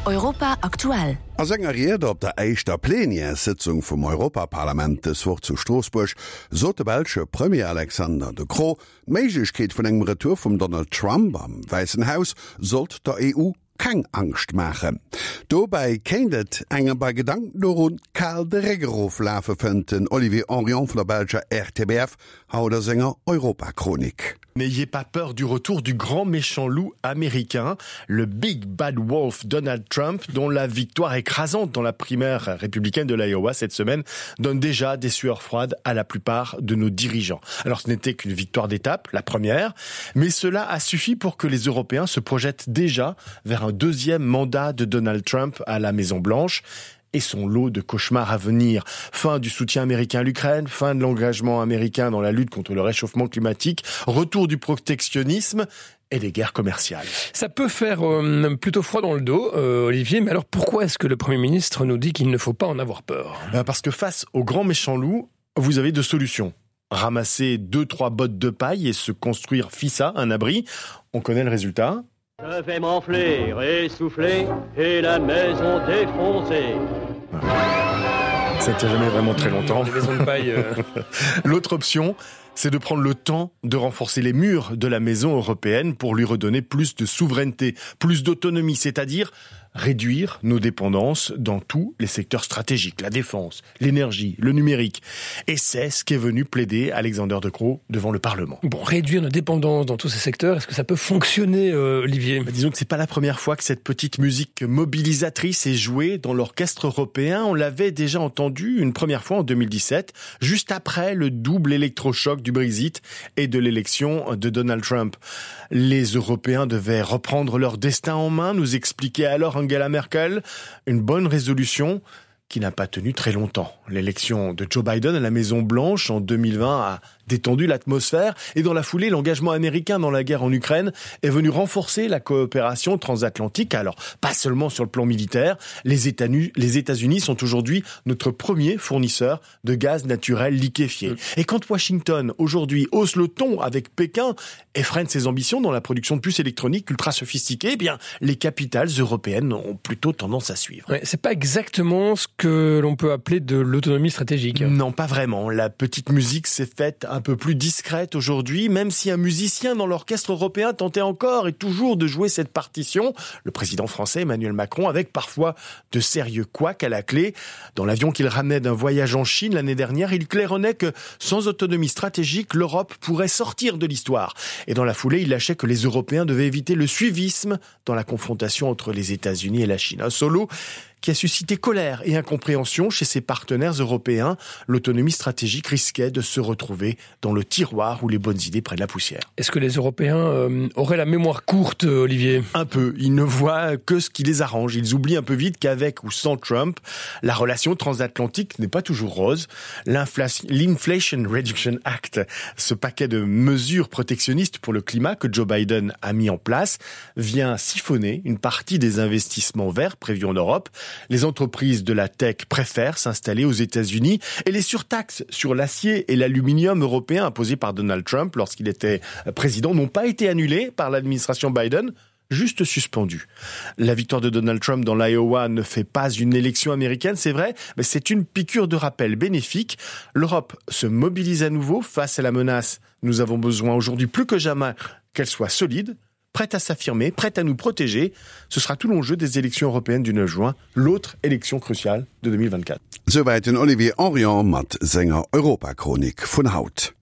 Europa aktuell. A senger Ried op der éischter Plenièressëtzung vum Europaparlament dës Woch zu Stroossbuerg sot de belsche Premier Alexander De Croo, d'Méiglechkeet vun engem Retour vum Donald Trump am Wäissen Haus sollt der EU keng Angscht maachen. Dobäi kéint et engem bei Gedanken dorun kal de Réck eroflafen, fënnt den Olivier Hanrion vun der belscher RTBF haut a senger Europachronik. N'ayez pas peur du retour du grand méchant loup américain, le Big Bad Wolf Donald Trump, dont la victoire écrasante dans la primaire républicaine de l'Iowa cette semaine donne déjà des sueurs froides à la plupart de nos dirigeants. Alors ce n'était qu'une victoire d'étape, la première, mais cela a suffi pour que les Européens se projettent déjà vers un deuxième mandat de Donald Trump à la Maison Blanche et son lot de cauchemars à venir. Fin du soutien américain à l'Ukraine, fin de l'engagement américain dans la lutte contre le réchauffement climatique, retour du protectionnisme et des guerres commerciales. Ça peut faire euh, plutôt froid dans le dos, euh, Olivier, mais alors pourquoi est-ce que le Premier ministre nous dit qu'il ne faut pas en avoir peur euh, Parce que face au grand méchant loup, vous avez deux solutions. Ramasser deux, trois bottes de paille et se construire fissa, un abri. On connaît le résultat. Je vais m'enfler, essouffler et la maison défoncer. Ça ne tient jamais vraiment très longtemps. Euh. L'autre option, c'est de prendre le temps de renforcer les murs de la maison européenne pour lui redonner plus de souveraineté, plus d'autonomie, c'est-à-dire réduire nos dépendances dans tous les secteurs stratégiques, la défense, l'énergie, le numérique. Et c'est ce qu'est venu plaider Alexander De Croo devant le Parlement. Bon, réduire nos dépendances dans tous ces secteurs, est-ce que ça peut fonctionner, euh, Olivier bah, Disons que c'est pas la première fois que cette petite musique mobilisatrice est jouée dans l'orchestre européen. On l'avait déjà entendu une première fois en 2017, juste après le double électrochoc du Brexit et de l'élection de Donald Trump. Les Européens devaient reprendre leur destin en main, nous expliquait alors Angela Merkel, une bonne résolution qui n'a pas tenu très longtemps. L'élection de Joe Biden à la Maison Blanche en 2020 a détendu l'atmosphère et dans la foulée, l'engagement américain dans la guerre en Ukraine est venu renforcer la coopération transatlantique. Alors, pas seulement sur le plan militaire, les États-Unis sont aujourd'hui notre premier fournisseur de gaz naturel liquéfié. Mm. Et quand Washington, aujourd'hui, hausse le ton avec Pékin et freine ses ambitions dans la production de puces électroniques ultra sophistiquées, eh bien, les capitales européennes ont plutôt tendance à suivre. Ouais, c'est pas exactement ce que l'on peut appeler de l'autonomie stratégique. Non, pas vraiment. La petite musique s'est faite un peu plus discrète aujourd'hui, même si un musicien dans l'orchestre européen tentait encore et toujours de jouer cette partition, le président français Emmanuel Macron, avec parfois de sérieux couacs à la clé. Dans l'avion qu'il ramenait d'un voyage en Chine l'année dernière, il claironnait que sans autonomie stratégique, l'Europe pourrait sortir de l'histoire. Et dans la foulée, il lâchait que les Européens devaient éviter le suivisme dans la confrontation entre les États-Unis et la Chine. Un solo qui a suscité colère et incompréhension chez ses partenaires européens. L'autonomie stratégique risquait de se retrouver dans le tiroir où les bonnes idées prennent la poussière. Est-ce que les Européens euh, auraient la mémoire courte, Olivier Un peu. Ils ne voient que ce qui les arrange. Ils oublient un peu vite qu'avec ou sans Trump, la relation transatlantique n'est pas toujours rose. L'Inflation Reduction Act, ce paquet de mesures protectionnistes pour le climat que Joe Biden a mis en place, vient siphonner une partie des investissements verts prévus en Europe. Les entreprises de la tech préfèrent s'installer aux États-Unis et les surtaxes sur l'acier et l'aluminium européen imposées par Donald Trump lorsqu'il était président n'ont pas été annulées par l'administration Biden juste suspendu. La victoire de Donald Trump dans l'Iowa ne fait pas une élection américaine, c'est vrai, mais c'est une piqûre de rappel bénéfique. L'Europe se mobilise à nouveau face à la menace. Nous avons besoin aujourd'hui plus que jamais qu'elle soit solide, prête à s'affirmer, prête à nous protéger. Ce sera tout l'enjeu des élections européennes du 9 juin, l'autre élection cruciale de 2024. Souwäit den Olivier Hanrion mat senger Europachronik vun haut.